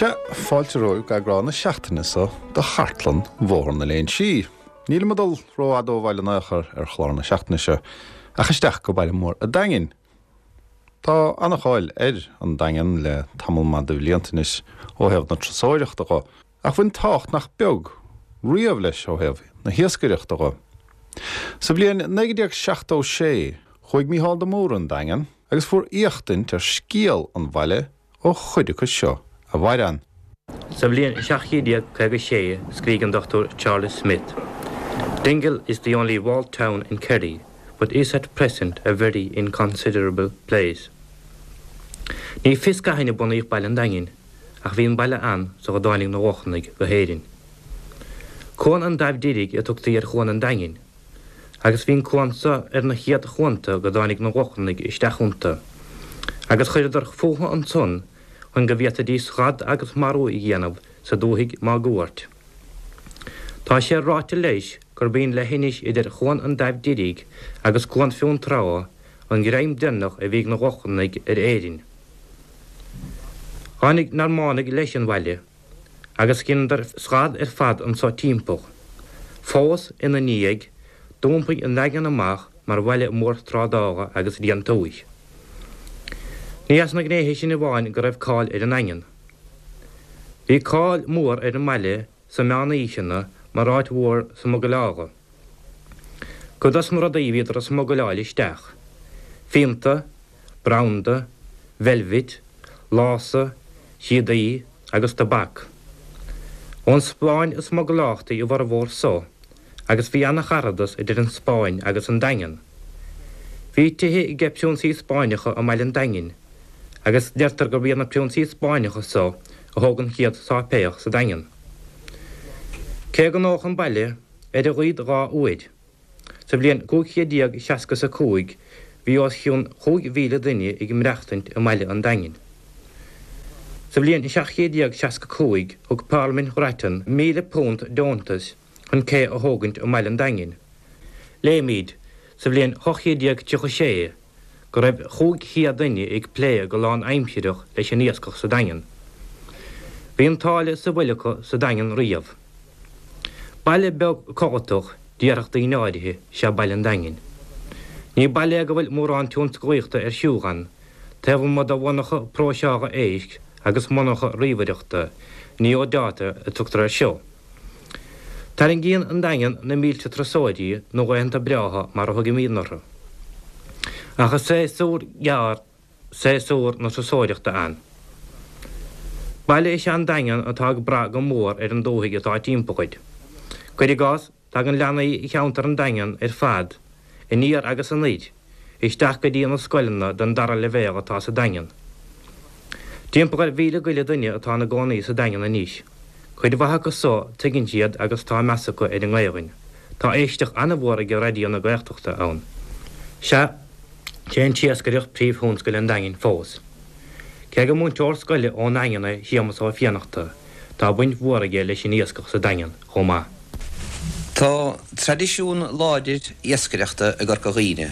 Sea, fáilte romhaibh go eagrán na seachtaine so de Chartlann Bhóthar na Léinsí. Nílim ag dul rófhada ó bhaile in aon chor ar chlár na seachtaine seo, ach isteach go baile mór a' Daingin. Tá ana-cháil ar an Daingean le tamall maith de bhlianta anois ó thaobh na turasóireachta dho, ach bhain tábhacht nach beag riamh leis ó thaobh na hiascaireachta dho. Sa bhliain 1976 chuaigh Mícheál de Mórdha 'on Daingean agus fuair éachtaint ar scéal an bhaile ó chuid acu seo a mhair ann. Sa bhliain 1756 scrígh an Dr Charles Smith, Dingle is the only walled town in Kerry, but is at present a very inconsiderable place. Ní fios cathain a bunaíodh Baile an Daingin, ach bhí an baile ann sar a dtáinig na Lochlanaigh go hÉirinn. Cuan an Daimh Deirg a tugtaí ar Chuan an Daingin, agus bhí an cuan so ar na chéad chuanta go dtáinig na Lochlannaigh isteach iontu, agus chuireadar fúthu ansan chun go bhféadfaidís gad agus marú a dhéanamh sa dúthaigh máguaird. Tá sé ráite leis gurb í an leithinis idir Chuan an Daimh Deirg agus Cuan Fionntrá an greim deireanach a bhí ag na Lochlannaigh ar Éirinn. Tháinig Normánaigh leis an bhaile agus dheineadar scad ar fad anso timpeall. Fós ina ndiaidh, d'iompaigh an Daingean amach mar bhaile mór trádála agus déantúis. Ní as na gnéithe sin amháin go raibh cáil ar an nDaingean. Bhí cáil mhór ar an mbaile sa meánaoiseanna mar áit mhór smugairleála. Cuid dos na rudaí a bhíodar a smugairleáil isteach, fíonta, branda, veilbhit, lása, síodaí agus tobac. Ón Spáinn a smugairleáiltí a bhformhór so agus bhí ana-charadas idir an Spáinn agus an Daingean. Bhí tithe age priúnsaí Spáinneacha i mbaile an Daingin agus deirtear gurb iad na priúnsaí Spáinneacha so a thóg an chéad sáipéal sa Daingean. Cé go ndódh an baile ar a laghad 2 uair sa bhliain 1565 bhí os cionn 5,000 duine ag maireachtaint i mbaile an Daingin. Sa bhliain 1765 thug Parlaimint Ghrattan £1,000 deontais chun cé a thógaint i mbaile an Daingin. Léimid, sa bhliain 1836, go raibh 500 duine ag plé go lán-aimsireach leis an iascach sa Daingean. Bhí an tsáile sa bhfuil acu sa Daingean riamh. Baile beag codlatach, déarfadh daoine áirithe, is ea Baile an Daingin. Ní baile é go bhfuil mórán tionsclaíochta ar siúl ann, taobh amuigh de mhonarcha próiseála éisc agus monarcha ríomhaireachta, Neodata a tugtar air seo. Tarraingíonn an Daingean na mílte turasóirí nó laethanta breátha mar a thugaimídne orthu. Ach is séasúr gearr séasúr na turasóireachta ann. Baile is ea an Daingean atá ag brath go mór ar an dúthaigh atá timpeall air. Cuir i gcás, tagann leanaí cheantar an Daingean ar fad, aniar agus anoir, isteach go dtí na scoileanna den dara leibhéal atá sa Daingean. Timpeall ar mhíle go leith duine atá ina gcónaí sa Daingean anois. Cuid mhaith acu so, tuigeann siad agus tá meas acu ar an nGaelainn. Tá éisteacht an-mhór ag Raidió na Gaeltachta ann. Sea, sé an t-iascaireacht príomhthionscal an Daingin fós. Cé gur múinteoir scoile ón nDaingean é Séamus Ó Fiannachta, tá baint mhór aige leis an iascach sa Daingean chomh maith. Tá traidisiún láidir iascaireachta i gCorca Dhuibhne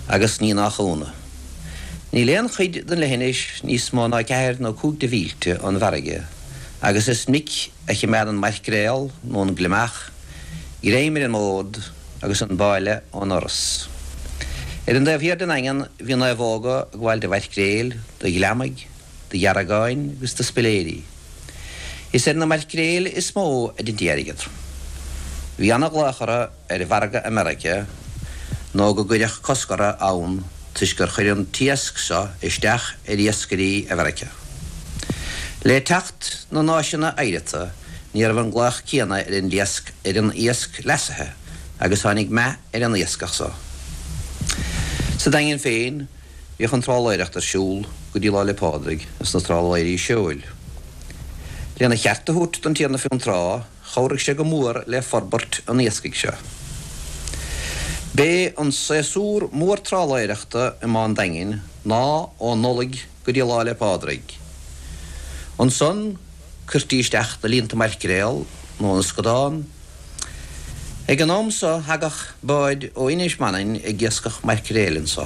agus ní nach ionadh. Níl aon chuid den leithinis níos mó ná ceathair nó cúig de mhílte ón bhfarraige agus is minic a chimeádann maircréal nó an gliomach greim ar an mbód agus an báille ón fhoras. Ar an dtaobh thiar den nDaingean bhí naomhóga ag gabháil de mhaircréil, de ghliomaigh, de dheargáin agus de spiléirí. Is ar na maircréil is mó a deintí airgead. Bhí ana-ghlaoch orthu ar mhargadh i Meiriceá nó go gcuireadh cosc orthu ann toisc gur chuir an t-iasc seo isteach ar iascairí i Mheiriceá. Le teacht na n-áiseanna oighreata ní raibh an glaoch céanna ar an iasc ar an iasc leasaithe agus tháinig meath ar an iascach so. Sa Daingean féin Bhíodh an trálaeireacht ar siúl go dtí Lá 'le Pádraig ins na trálaeirí seoil. Lena cheart a thabhairt don Tiarna Fionntrá, chabhraigh sé go mór le forbairt an iascaigh seo. B'é an séasúr mór trálaeireachta i mBá an Daingin ná ó Nollaig go dtí Lá 'le Pádraig. Ansan cuirtí isteach na líonta maircréal nó na scadán. Ag an am so thagadh báid ó Inis Manainn ag iascach maircréil anso.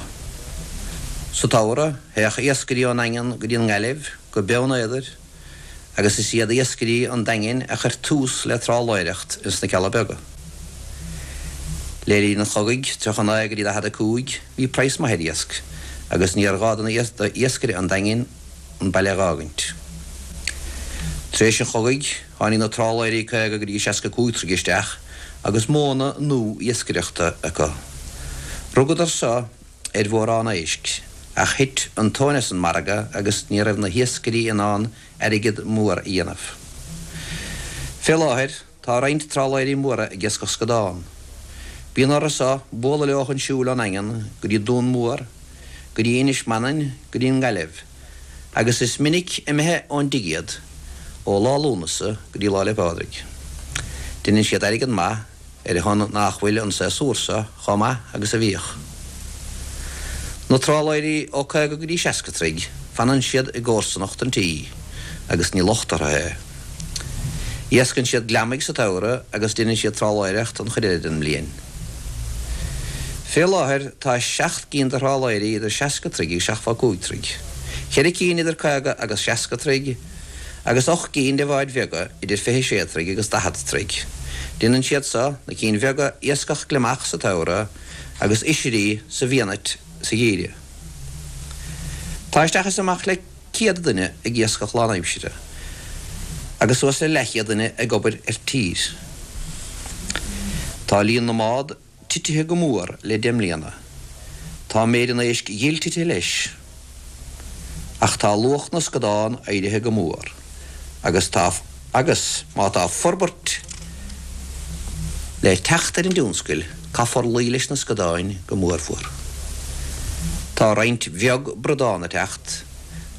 Sa tsamhradh théadh iascairí ón nDaingean go dtí an nGaillimh, go Beann Éadair. Agus is iad iascairí an Daingin a chuir tús le trálaeireacht ins na Cealla Beaga. Le linn an chogaidh, 39 go dtí 45, bhí praghas maith ar iasc agus níor ghá do na d'iascaire an Daingin an baile a dh'fhágaint. Tar éis an chogaidh, tháinig na trálaeirí 50 go dtí 65 troigh isteach agus modhanna nua iascaireachta acu. Rugadar so ar mhórán éisc, ach thit an tóin as an margadh agus ní raibh na hiascairí in ann airgead mór a dhéanamh. Fé láthair, tá roinnt trálaeirí móra ag iascach scadán. Bíonn orthu so bualadh leo chun siúil ón nDaingean go dtí Dún Mór, go dtí Inis Manainn, go dtí an nGaillimh, agus is minic imithe ón dtigh iad ó lá Lúnasa go dtí Lá 'le Pádraig. Deineann siad airgead maith ar a shon nach bhfuil an séasúr seo chomh maith agus a bhíodh. Na trálaeirí ó 50 go dtí 60 troigh, fanann siad i gcomharsanacht an tí agus ní locht orthu é. Iascann siad gliomaigh sa tsamhradh agus deineann siad trálaeireacht an chuid eile den mbliain. Fé láthair tá seacht gcinn de thrálaeirí idir 60 troigh agus 75 troigh, ceithre cinn idir 50 agus 60 troigh, agus 8 gcinn de bháid bheaga idir 26 troigh agus 40 troigh. Déanann siad so, na cinn bheaga, iascach gliomach sa tsamhradh agus oisrí sa bhfianait sa gheimhreadh. Tá isteach is amach le 100 duine ag iascach lánaimsire agus suas le leathchéad duine ag obair ar tír. Tá líon na mbád titithe go mór le deich mbliana. Tá méid an éisc ghil titithe leis. Ach tá luach na scadán éirithe go mór agus tá agus má tá forbairt le teacht ar an dtionscal caithfear luí leis na scadáin go mórmhór. Tá roinnt bheag bradán ag teacht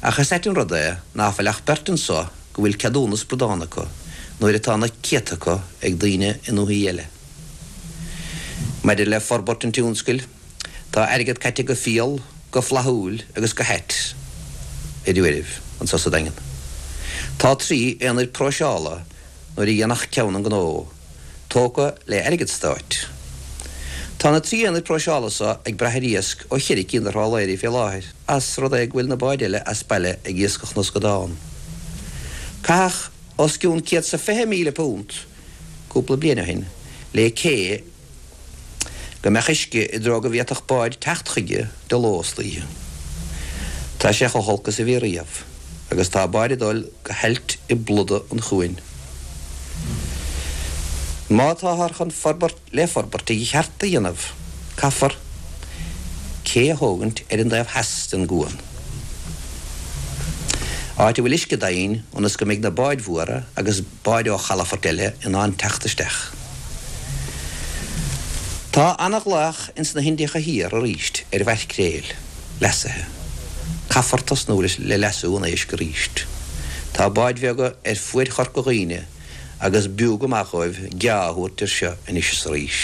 ach is ait an rud é ná fuil ach beirt anso go bhfuil ceadúnas bradán acu nuair atá na céadta acu ag daoine i ndúthaí eile. Maidir le forbairt an tionscail, tá airgead caite go fial, go flaithiúil agus go hait ar uairibh anso sa Daingean. Tá 3 aonaid próiseála, nuair a dhéanfadh ceann an gnó, tógtha le airgead stáit. Tá na 3 aonaid próiseála so ag brath ar iasc ó cheithre cinn de thrálaeirí fé láthair, as rud é go bhfuil na báid eile as baile ag iascach na scadán. Caitheadh os cionn £120,000 cúpla bliain ó shin le cé go mbeadh uisce i dtreo go bhféadfadh báid teacht chuige de ló is d'oíche. Tá sé chomh holc is a bhí riamh agus tá báid ag dul go hailt i bpluda an chuain. Má táthar chun forbairt le forbairt i gceart a dhéanamh, caithfear cé a thógaint ar an dtaobh theas den gcuan, áit a bhfuil uisce doimhin ionas go mbeidh na báid mhóra agus báid ó chalafoirt eile in ann teacht isteach. Tá ana-ghlaoch ins na hIndiacha Thiar arís ar mhaircréil leasaithe. Caithfear tosnú le leasú an éisc arís. Tá báid bheaga ar fuaid Chorca Dhuibhne agus b'fhiú go maith dhóibh geá a thabhairt air seo anois is arís.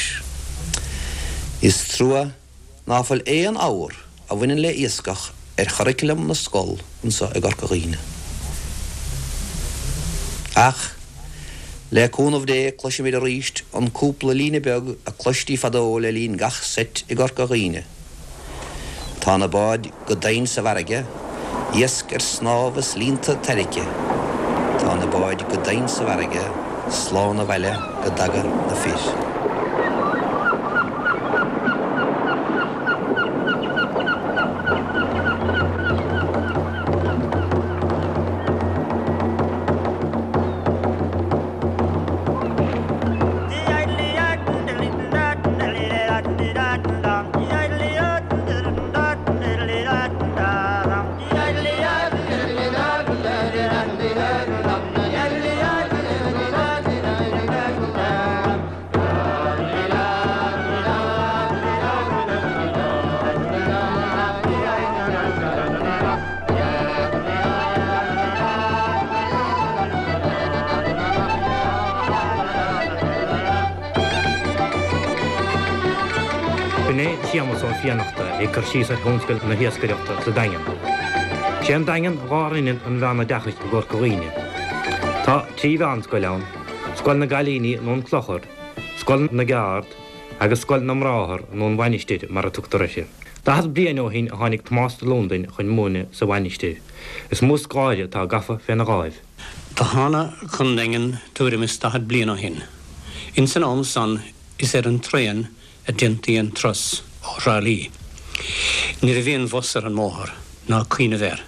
Is trua ná fuil aon abhar a bhaineann le iascach ar churriculum na scol anso i gCorca Dhuibhne. Ach, le cúnamh Dé, cloisfimid arís an cúpla líne beag a cloistí fadó le linn gach seit i gCorca Dhuibhne. Tá na báid go domhain sa bhfarraige, iasc ar snámh is líonta tarraicthe. Tá na báid go domhain sa bhfarraige, slán abhaile go dtaga na fir. B'in é Séamus Ó Fiannachta ag cur síos ar thionscal na hiascaireachta sa Daingean. Sé an Daingean lárionad an mheánoideachais i gCorca Dhuibhne. Tá 3 mheánscoil ann, Scoil na gCailíní nó an Clochar, Scoil na gCeárd agus Scoil na mBráthar nó an Mhainistir mar a tugtar uirthi. 40 bliain ó shin a tháinig Tomás de Lúndain chun múineadh sa Mhainistir. Is mó scoláire atá gafa féna dháimh. Do thána chun Daingin tuairim is 40 bliain ó shin. Ins an am san is ar an traen a déantaí an turas ó Thrá Lí. Ní raibh aon bhus ar an mbóthar, ná cuimhneamh air.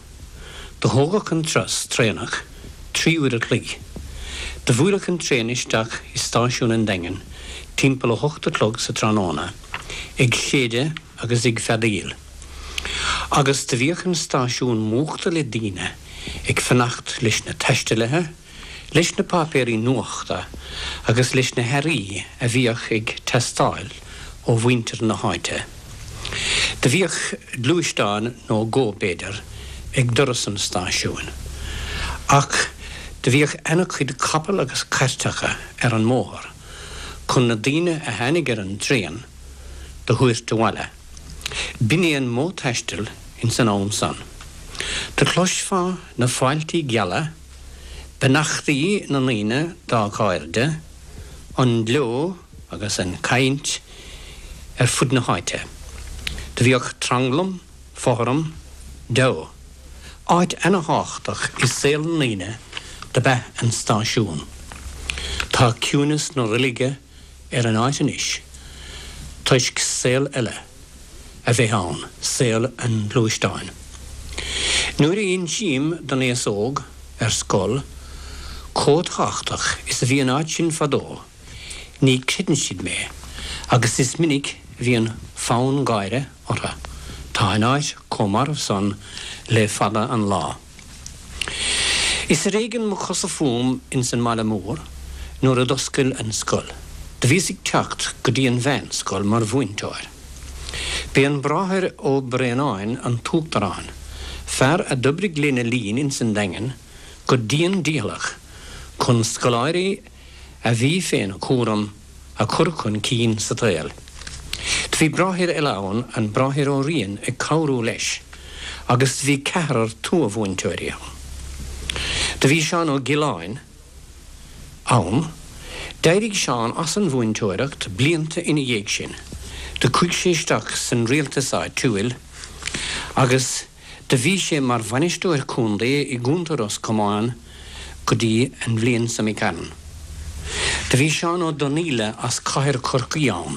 Do thógadh an turas traenach 3 uair a chloig. Do bhuailfeadh an traen isteach i stáisiún an Daingin timpeall 8 a chlog sa tráthnóna, ag séideadh agus ag feadaíl. Agus do bhíodh an stáisiún múchta le daoine ag fanacht leis na taistealaithe, leis na páipéirí nuachta agus leis na hearraí a bhíodh ag teastáil ó mhuintir na háite. Do bhíodh gluaisteán nó dhó, b'fhéidir, ag doras an stáisiúin, ach do bhíodh ana-chuid capall agus cairteacha ar an mbóthar chun na daoine a tháinig ar an dtraen do thabhairt abhaile. B'in é an modh taistil ins an am san. Do chloisfeá na fáiltí geala, beannachtaí na ndaoine dá gcairde, an gleo agus an chaint ar fud na háite. Do bhíodh tranglam, fothram, deabhadh. Áit ana-thábhachtach i saol na ndaoine dob ea an stáisiún. Tá ciúineas na reilige ar an áit anois toisc saol eile a bheith ann, saol an ghluaisteáin. Nuair a insím don aos óg ar scoil chomh tábhachtach is a bhí an áit sin fadó, ní chreideann siad mé agus is minic a bhíonn fonn gáire orthu. Tá an áit chomh marbh san le fada an lá. Is ar éigean mo chosa fúm ins an mbaile mór nuair a d'oscail an scoil. Do bhíos ag teacht go dtí an mheánscoil mar mhúinteoir. B'é an Bráthair Ó Braonáin an t-uachtarán, fear a d'oibrigh lena linn ins an Daingean go dian dícheallach chun scoláirí a bhí féna chúram a chur chun cinn sa tsaol. Do bhí bráthair eile ann, an Bráthair Ó Riain, ag cabhrú leis, agus do bhí ceathrar tuath-mhúinteoirí ann. Do bhí Seán Ó Giolláin ann. D'éirigh Seán as an mhúinteoireacht blianta ina dhiaidh sin. Do chuaigh sé isteach san rialtas áitiúil agus Do bhí sé mar bhainisteoir contae i gContae Ros Comáin go dtí an bhliain seo imigh tharainn. Do bhí Seán Ó Donnaíle as Cathair Chorcaí ann.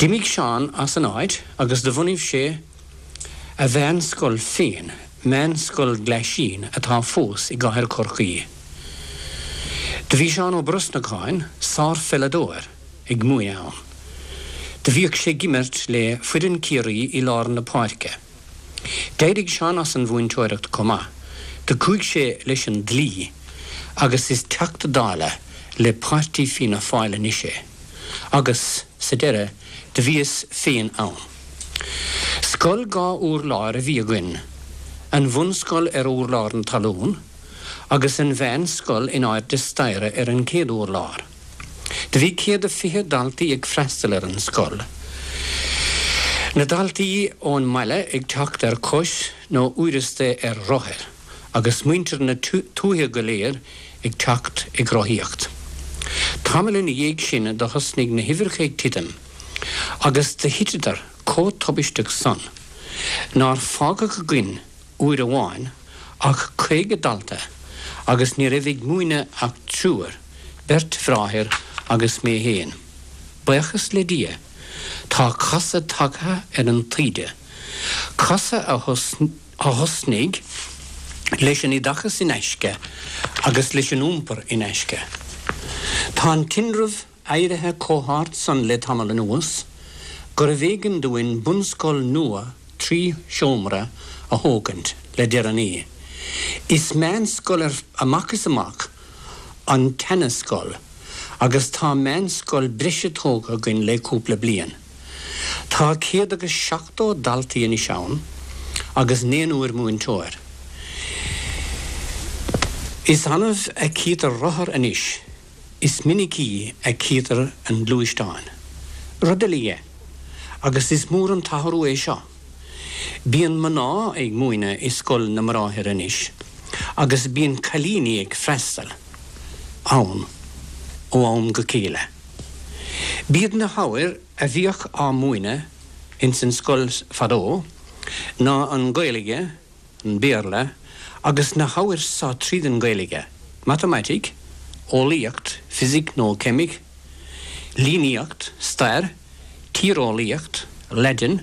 D'imigh Seán as an áit agus do bhunaigh sé a mheánscoil féin, Meánscoil Ghlaisín atá fós i gCathair Chorcaí. Do bhí Seán Ó Brosnacháin, sár-pheileadóir. ag múineadh ann. Do bhíodh sé ag imirt le foireann Ciarraí i lár na páirce. D'éirigh Seán as an mhúinteoireacht chomh maith. Do chuaigh sé leis an dlí agus is Teachta Dála le Páirtí Fianna Fáil anois é. Agus, sa deireadh, do bhíos féin ann. Scoil 2 urlár a bhí againn, an bhunscoil ar urlár na talún agus an mheánscoil in airde staighre ar an chéad urlár. Do bhí 120 daltaí ag freastal ar an scoil. Na daltaí ón mbaile ag teacht ar cois nó uaireasta ar rothair agus muintir na tuaithe go léir ag teacht ag rothaíocht. Tamall ina dhiaidh sin do thosnaigh na huimhreacha ag titim agus do thiteadar chomh tubaisteach san nár fágadh againn uair amháin ach 50 dalta agus ní raibh ag múineadh ach triúr, beirt bhráthair agus mé fhéin. Buíochas le Dia, tá casadh tagtha ar an taoide, casadh a thosnaigh leis an oideachas in aisce agus leis an iompar in aisce. Tá an tinreamh éirithe chomh hard san le tamall anuas gurbh éigean dúinn bunscoil nua 3 sheomra a thógaint le deireanaí. Is meánscoil amach is amach an tseana-scoil agus tá meánscoil breise tógtha againn le cúpla bliain. Tá 170 daltaí anois ann agus naonúr múinteoir. Is annamh a chítear rothar anois. Is minicí a chítear an gluaisteán. Rud eile dhe, agus is mór an t-athrú é seo, bíonn mná ag múineadh i scoil na mBráithre anois agus bíonn cailíní ag freastal ann ó am go chéile. B'iad na hábhair a bhíodh á múineadh ins an scoil fadó ná an Ghaeilge, an Béarla. Agus na hábhair so tríd an Ghaeilge, matamaitic, eolaíocht, fisic nó ceimic, líníocht, stair, tíreolaíocht, Laidin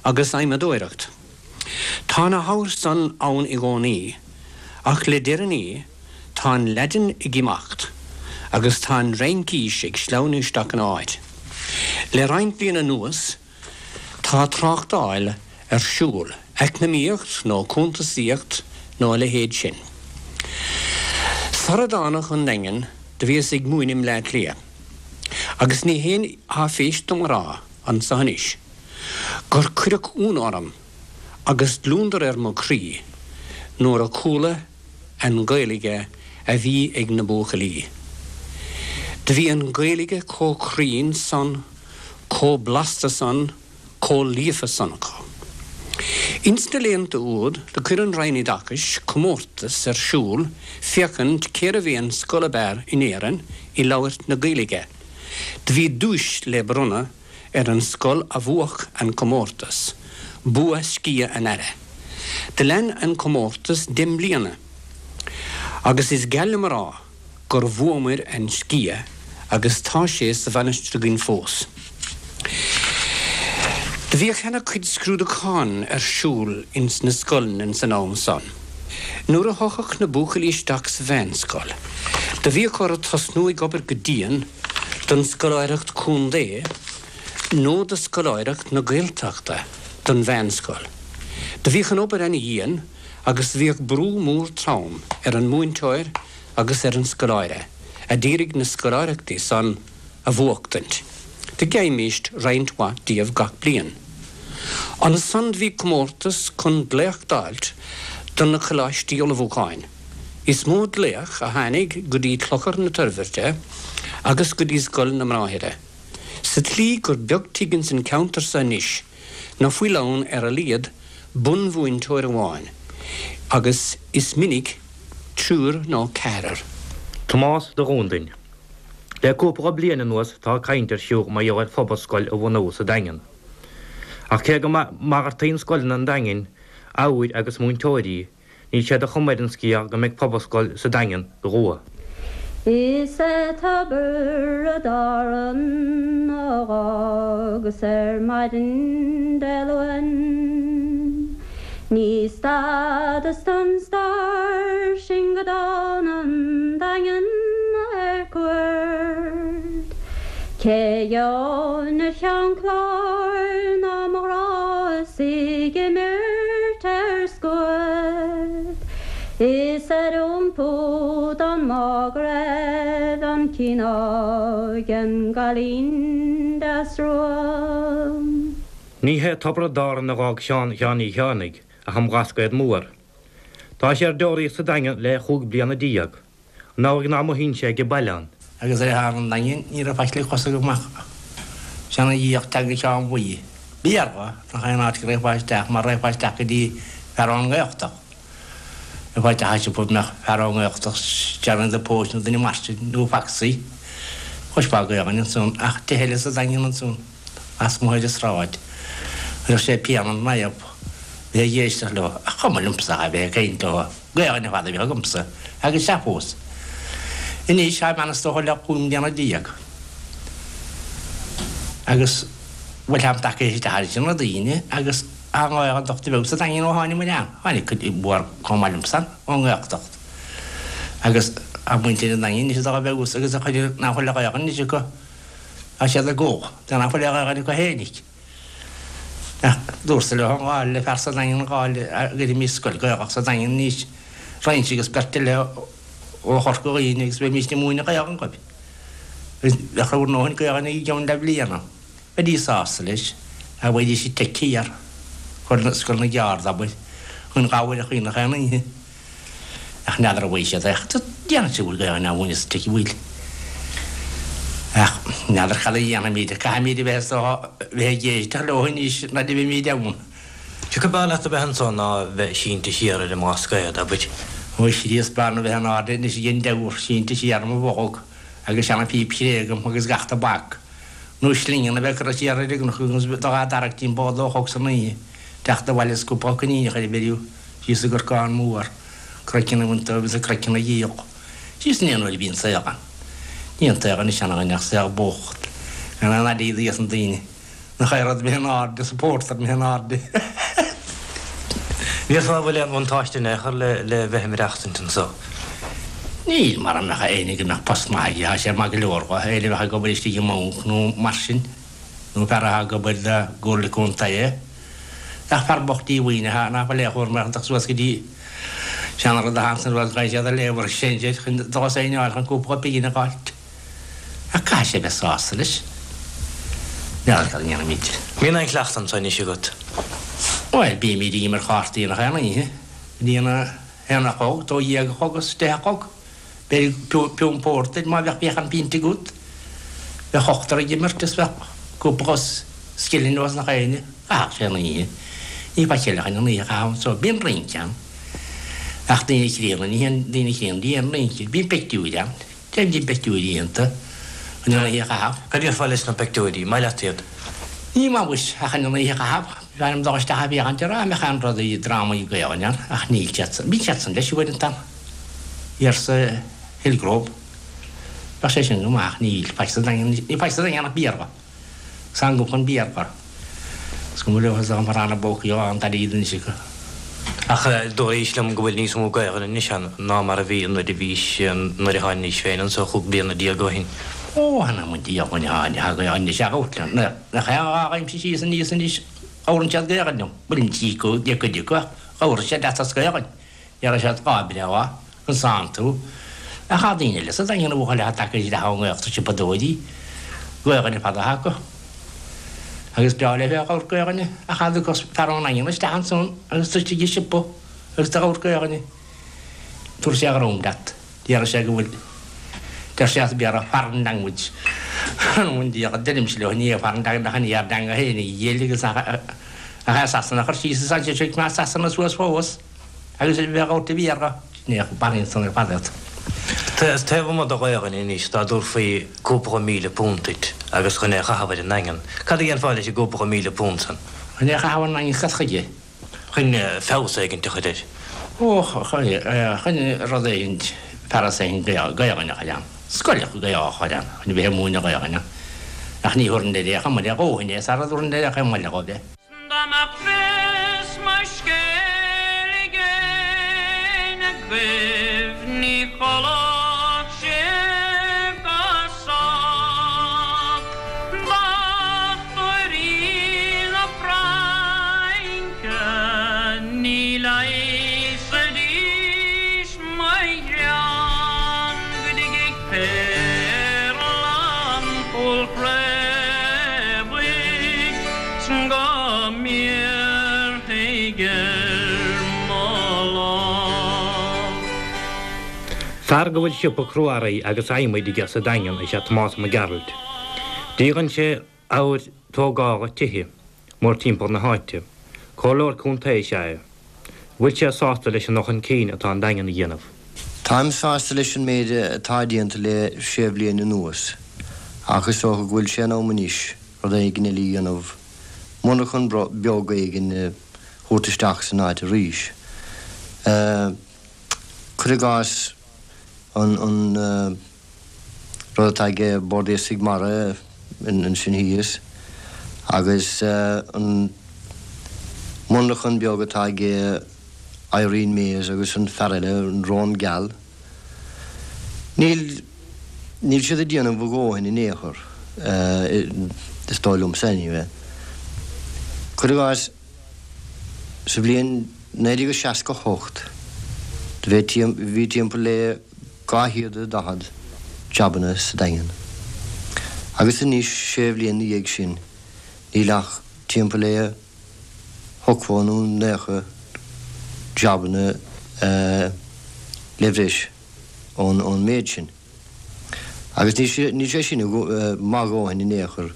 agus adhmadóireacht. Tá na hábhair san ann i gcónaí, ach le deireanaí tá an Laidin ag imeacht agus tá an Fhraincis ag sleamhnú isteach ina áit. Le roinnt bliain anuas tá tráchtáil ar siúl, eacnamaíocht nó cuntasaíocht nó a leithéid sin. Sara dtána chun Daingin do bhíos ag múineadh i mBleá Cliath, agus ní haon áiféis dom a rá anso anois gur cuireadh ionadh orm agus gliondar ar mo chroí nuair a chuala an Ghaeilge a bhí ag na buachaillí. Do bhí an Ghaeilge chomh cruinn san, chomh blasta san, chomh líofa san acu. Ins na laethanta úd do chuir an Roinn Oideachais comórtas ar siúl féachaint cérbh é an scoil ab fhearr in Éirinn i labhairt na Gaeilge. Do bhí duais le bronnadh ar an scoil a bhuafadh an comórtas, bua sciath an Aire. Do lean an comórtas deich mbliana agus is geal liom a rá gur bhuamair an sciath agus tá sé sa mhainistir againn fós. Do bhíodh ana chuid scrúdúchán ar siúl ins na scoileanna ins an am san. Nuair a thiocfadh na buachaillí isteach sa mheánscoil do bhíodh orthu tosnú ag obair go dian don scoláireacht contae nó do scoláireacht na Gaeltachta don mheánscoil. Do bhíodh an obair ana-dhian agus do bhíodh brú mór trom ar an múinteoir agus ar an scoláire a d'iarraidh na scoláireachtaí san a bhuachtaint. Do gheibhimíst roinnt mhaith díobh gach bliain. Ansan do bhí comórtas chun glaoch d'fháilt do na coláistí ullmhúcháin. Is mó glaoch a tháinig go dtí Clochar na Toirbhirte agus go dtí Scoil na mBráithre, sa tslí gur beag tigh ins an cheantar so anois ná fuil ann ar a laghad bunmhúinteoir amháin, agus is minic triúr nó ceathrar. Tomás de Dhúndain. Le cúpla bliain anuas tá caint ar siúl mar gheall ar phobalscoil a bhunú sa Daingean. Ach cé go malartaíonn scoileanna an Daingin ábhair agus múinteoirí, Níl sé de chuma ar an scéal go mbeidh pobalscoil sa Daingean go luath. Is é Tiobraid Árann a dh'fhágas ar maidin Dé Luain. Ní stadas don stair sin go dtána 'on Daingean ar cuairt. Cé gheobhainn ar Cheann Chláir ná mo ghrá is í ag imirt ar scuad. Is ar iompú don mbá go raibh an cineál den gcailín deas rua. Ní hé Tiobraid Árann a dh'fhág Seán Sheáin Uí Chearnaigh ach an Blascaod Mór. Tá sé ar deoraíocht sa Daingean le chúig bliana déag. An amhlaidh ná mothaíonn sé age baile ann. Agus ar thar an Daingean ní raibh faic le cos agam ach seana-fhiach teanga Sheáin Bhuí. B'fhíor nach é an áit go raghfá isteach mar raghfá isteach go dtí fear ón nGaeltacht. Raghfá isteach i siopa mbeadh fear ón nGaeltacht, Johnny the Post nó duine mar sin nó Foxy. Chloisfeá Gaelainn ansan ach tithe eile sa Daingean ansan lasmuigh ar an sráid. Chuirfeadh sé pian an naomh bheith ag éisteacht leo ach chuma liomsa a bheith ag caint leo. Gaelainn ar fad a bhíodh agamsa, agus sea fós. Anois, táim ann is dócha le 15 mbliana. Agus, bhuel, táim tagtha isteach ar na daoine agus tá an Ghaeltacht beo sa Daingean ó tháinig muid ann. Tháinig cuid mhór chomh maith liomsa ón nGaeltacht. Agus tá muintir an Daingin anois atá beo agus a chuid nach bhfuil Gaelainn anois acu, tá siad ag gol, nach bhfuil Gaelainn acu fhéinig. Ach dúrtsa leo an gá le fear sa Daingean an gá le gcuirfimís scoil Ghaelach sa Daingean anois roinnt agus beirt eile ó Chorca Dhuibhne agus bheimís ag múineadh Gaelainn dóibh. Agus bheadh bhur ndóthain Gaelainn i gceann leathbhliana. Bheidís sásta leis, ach bheidís ag teic thiar, Scoil na gCeárd, abair, chun gabhair a chaoineadh aon oíche. Ach n'fheadar an bhfaighidh siad é. Ach déanfaidh siad bhfuil Gaelainn á mhúineadh sa tigh a bhfuil. Ach n'fheadar cad a dhéanfaimid. Caithfimid a bheith is dócha bheith ag éisteacht leo anois nuair a bheimid ann. Cé acu b'fhearr leat a bheith anso ná a bheith sínte siar ar an mBlascaod, abair? Ó a Chríost, b'fhearr liom a bheith in airde anois ag an dteamhair, sínte siar i mo bholg agus seana-phíp chré agam agus gach tobac nó slingeanna a bheith curtha siar ar an gcnoc agus dul á dtarrac timpeall dó a chlog san oíche, teacht abhaile is cúpla coiníneach ar an bhfeiriú. Síos i gCorcán Mór. Craiceann a bhaint dóibh agus a gcraiceann a dhíol. Síos in aon uair a bhíonn saol ann. Ní an saol anois ann againn ach saol bocht. Gan aon airgead ages na daoine. Nach é rud imithe in airde is an pórtar imithe in airde. Déarfá an bhfuil aon bhuntáiste in aon chor le bheith ag maireachtaint anso? Níl, mara mbeadh éinne go mbeadh post maith aige, tá sé maith go leor dho, éinne a bheadh ag obair istigh i mbanc nó mar sin, nó fear atá ag obair do gcomhairle contae. Ach fear bocht díomhaoin atá nach bhfuil aon chúram air ach suas go dtí seanrud a thagann suas go siad a léamh ar sinsear chun dul as aon áit chun cúpla pingin a dh'fháilt. Ach caithfidh sé bheith sásta leis. N'fheadar cad a ndéanfaimid. Mbíonn aon chleachtadh anso anois agat? Bhuel, bímid ag imirt chártaí nach aon oíche. Go dtí an haon a chlog, 12 a chlog is deich a chlog. B'fhéidir piúnt pórtair má bheadh bheadh an pionta agat. Bheadh ochtar ag imirt is bheadh cúpla scilling os nach éinne. Chaithfeadh sé an oíche. Ní faic eile chun an oíche a chaitheamh anso. Bíonn rince ann. Ach daoine críonna, ní haon daoine críonna, ní haon rince. Bíonn pictiúir ann. Déan díom peictiúirí iontu chun an oíche a chaitheamh. Cad a déarfá leis na peictiúirí? Maith leat iad? Ní maith muis, ach chun an oíche a chaitheamh. B'fhearr liom dul isteach ag féachaint ar dá mbeadh aon rudaí, drámaí Gaelainne ann, ach níl siad san. Bíonn siad san leis uaireanta ann. Thiar sa Hillgrove. Bheadh sé sin go maith ach níl. Faic sa Daingean, ní faic sa Daingean ach Béarla. Sangu chun Béarla. Is cuma leo is dá mba rannta bócaí á an t-airgead anois acu. Ach dúraís liom go bhfuil níos mó Gaelainne anois ann ná mar a bhí nuair a bhís, nuair a tháinís féin anso chúig bliana déag ó shin. Ó, th'anam 'on diabhal, thá Gaelainn anois agat liom. Nach é an dhá ghaibhimse síos aníos anois, labhrann siad Gaelainn liom. Bhuel, ní cuid acu ach labhrann siad leat as Gaelainn. Déarfaidh siad lá breá, conas tánn tú. Ach tá daoine eile sa Daingean a bhuachaill atá tagtha isteach ón nGaeltacht siopadóirí, Gaelainn ar fad atá acu. Agus breá leo bheith ag labhairt Gaelainne, ach cha dtiocfadh fear ón nDaingean isteach ansan agus tú istigh i siopa agus tú ag labhairt Gaelainne, tabharfaidh sé a dhroim leat. Déarfaidh sé go bhfuil, deir sé as Béarla, foreign language. An diabhal, deirimse leo, ní hé foreign language ach an ár dteanga féin a dhil agus nach é Sasana a chur síos is ansin seo Sasana suas fós. Agus a bheith ag labhairt Béarla, sin é a mharaíonn san ar fad iad. Taobh amuigh de Ghaelainn anois, dá dtabharfaí cúpla £1,000 duit agus chun é a chaitheamh ar an nDaingean, cad a dhéanfá leis an gcúpla £1,000 san? Chun é a chaitheamh ar an nDaingean, cad chuige? Chun feabhas éigint a chur air. Ó, chun rud éigint, fearas éigint Gaelainne a chur ann, scoil Gaelach a chur ann, chun a bheith ag múineadh Gaelainne. Ach ní thabharfainn air é chomh maith le dhóthain é, sara dtabharfainn air é chomh maith le dhóibh é. Dá mbeadh fios mo scéil ag éinne agaibh ní chodlódh sibh go sách. Dochtúirí na Fraince ní leigheasfaidís mo ghreann go dtigidh péarla an Chúil Chraobhaigh 's go mbéarfaidh ar mo lámh. Fear go bhfuil siopa crua-earraí agus adhmaid aige sa Daingean is ea Tomás Mac Gearailt. Díolann sé abhair tógála tithe mórtimpeall na háite. Comhairleoir contae is ea é. Bhfuil sé sásta leis an dul chun cinn atá an Daingean a dhéanamh? Táim sásta leis an méid atá déanta le sé bhliain anuas, ach is dócha go bhfuil sé in am anois rud éigin eile a dhéanamh, monarchan beag éigin a thabhairt isteach san áit arís. Cuir i gcás an rud atá ag Bord Iascaigh Mara ansin thíos agus an monarchan beag atá ag Irene Mayes agus an fear eile, an Rón Geal. Níl, níl siad ag déanamh a dhóthain in aon chor, is dóigh liomsa anyway. Cuir i gcás, sa bhliain 1968, do bhí timpeall le 240 jabanna sa Daingean. Agus anois, sé bhliain 'na dhiaidh sin, níl ach timpeall le hochtó nó naocha jabanna le bhreis ón méid sin. Agus níl sé sin maith a dhóthain in aon chor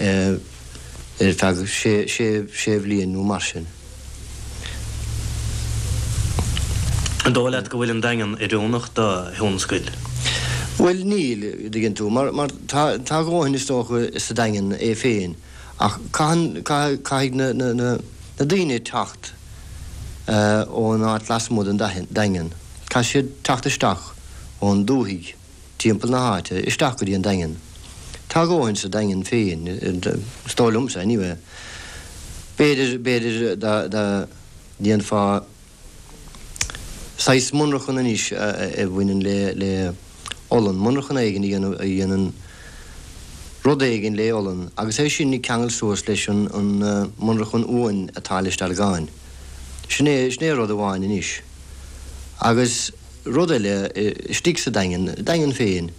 ar feadh sé bhliain nó mar sin. An dóigh leat go bhfuil an Daingean oiriúnach do thionscail? Bhuel, níl, a dtuigeann tú, mar tá a dhóthain is dócha sa Daingean é féin ach caitheann, caithfidh na daoine teacht ón áit lasmuigh den Daingean. Caithfidh siad teacht isteach ón dúthaigh timpeall na háite isteach go dtí an Daingean. Tá a dhóthain sa Daingean féin, is dóigh liomsa anyway. B'fhéidir, b'fhéidir dá, dá ndéanfá saghas monarchan anois a bhaineann le, le olann, monarchan éigin a dhéanamh, a dhéanann rud éigin le olann agus é sin a cheangal suas leis an, an monarchan uain atá i Leitir Ceanainn. Sin é, sin é rud amháin anois. Agus rud eile, istigh sa Daingean, Daingean féin,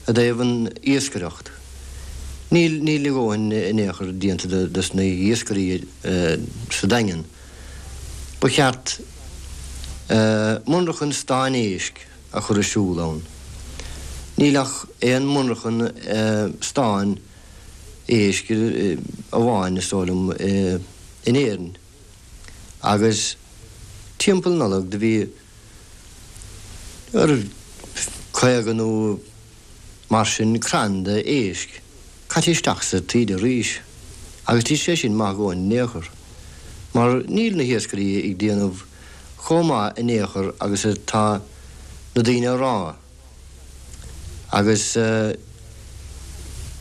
i dtaobh an iascaireacht, níl, níl a dhóthain in aon chor déanta dos na hiascairí sa Daingean. Ba cheart monarchan stáin éisc a chur ar siúl ann. Níl ach aon monarchan stáin éisc amháin, is dóigh liom, in Éirinn. Agus timpeall Nollag do bhí ar 50 nó mar sin crann de éisc caite isteach sa taoide arís agus níl sé sin maith a dhóthain in aon chor mar níl na hiascairí ag déanamh chomh maith in aon chor agus atá na daoine a rá. Agus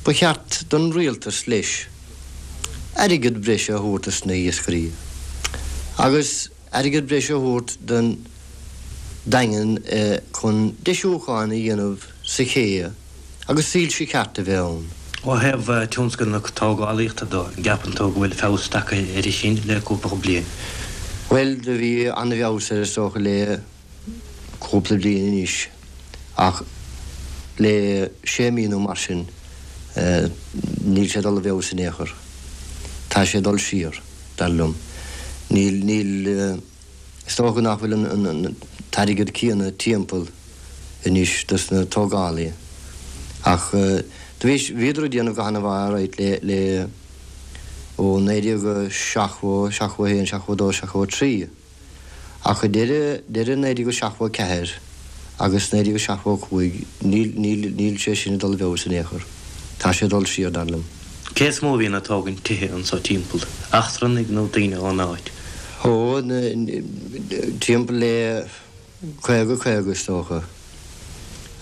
ba cheart don rialtas leis airgead breise a thabhairt dos na hiascairí agus airgead breise a thabhairt don Daingean chun deisiúcháin a dhéanamh sa ché agus soilse ceart a bheith ann. Ó thaobh tionscal na tógálaíochta de, an gceapann tú go bhfuil feabhas tagtha air sin le cúpla bliain? Bhuel, do bhí an-fheabhas air is dócha le cúpla bliain anois ach le sé mí nó mar sin níl sé ag dul i bhfeabhas in aon chor. Tá sé ag dul siar, dar liom. Níl, níl, is dócha nach bhfuil an t-airgead céanna timpeall anois dos na tógálaithe ach do bhí, bhíodar ag déanamh go han-mhaith alright le, le ó 1970, 71, 72, 73. Ach ag deireadh, deireadh 1974 agus 1975 níl, níl, níl sé sin ag dul i bhfeabhas in aon chor. Tá sé ag dul siar, dar liom. Cé is mó a bhíonn ag tógaint tithe anso timpeall? Eachtrannaigh nó daoine ón áit? Ó, timpeall le 50, 50 is dócha.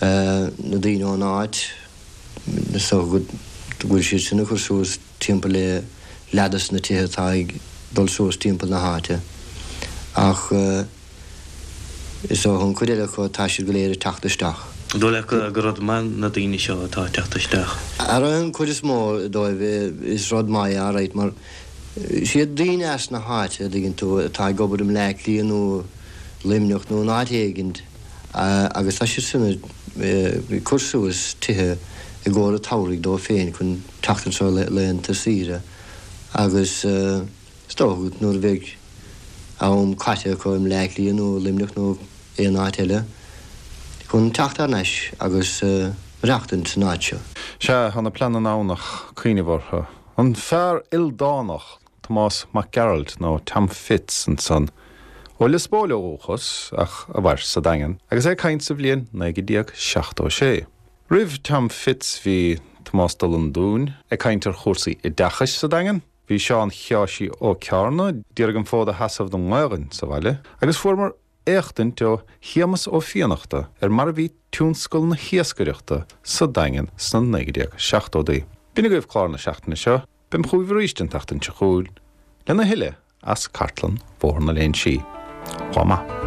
Na daoine ón áit, is dócha go bhfuil siad sin ag cur suas timpeall le leath dos na tithe atá ag dul suas timpeall na háite ach is dócha an chuid eile acu tá siad go léir ag teacht isteach. An dóigh leat gur rud maith na daoine seo atá ag teacht isteach? Ar an chuid is mó dóibh is rud maith é alright mar siad daoine as na háite a dtuigeann tú atá ag obair i mBleá Cliath nó Luimneach nó in áit éigint agus tá siad sin ag cur suas tithe i gcomhair an tsamhraidh dóibh féin chun teacht anseo laethanta saoire agus is dócha nuair a bheidh am caite acu i mBleá Cliath nó i Luimneach nó aon áit eile chun teacht thar n-ais agus maireachtaint san áit seo. Sea, tá na pleananna ann ach cuimhneamh orthu. An fear ildánach, Tomás Mac Gearailt nó Tom Fitz ansan, ó Lios Póil ó dhúchas ach a mhair sa Daingean, agus é ag caint sa bhliain 1976. Roimh Tom Fitz bhí Tomás de Lundúin ag caint ar chúrsaí oideachais sa Daingean, bhí Seán Sheáirsí Ó Cearna d'iarraidh an fód a sheasamh don nGaelainn sa bhaile agus fuaireamar éachtaint ó Shéamus Ó Fiannachta ar mar a bhí tionscal na hiascaireachta sa Daingean sna 1970idí. B'in agaibh clár na seachtaine seo. Beim chugaibh arís an tseachtain seo chugainn lena thuilleadh as cartlann Bhóthar na Léinsí. Lá maith.